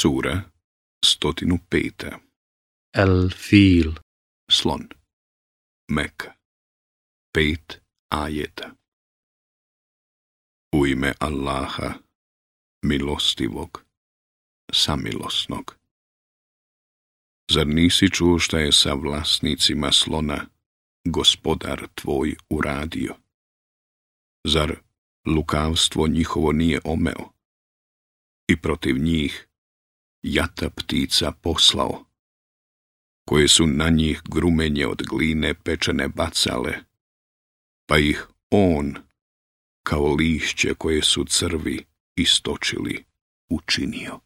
Sura 105. El-Fil. Slon. Meka. 5 ajeta. U ime Allaha, milostivog, samilosnog. Zar nisi čuo šta je sa vlasnicima slona gospodar tvoj uradio? Zar lukavstvo njihovo nije omeo i protiv njih jata ptica poslao, koje su na njih grumenje od gline pečene bacale, pa ih on, kao lišće koje su crvi istočili, učinio.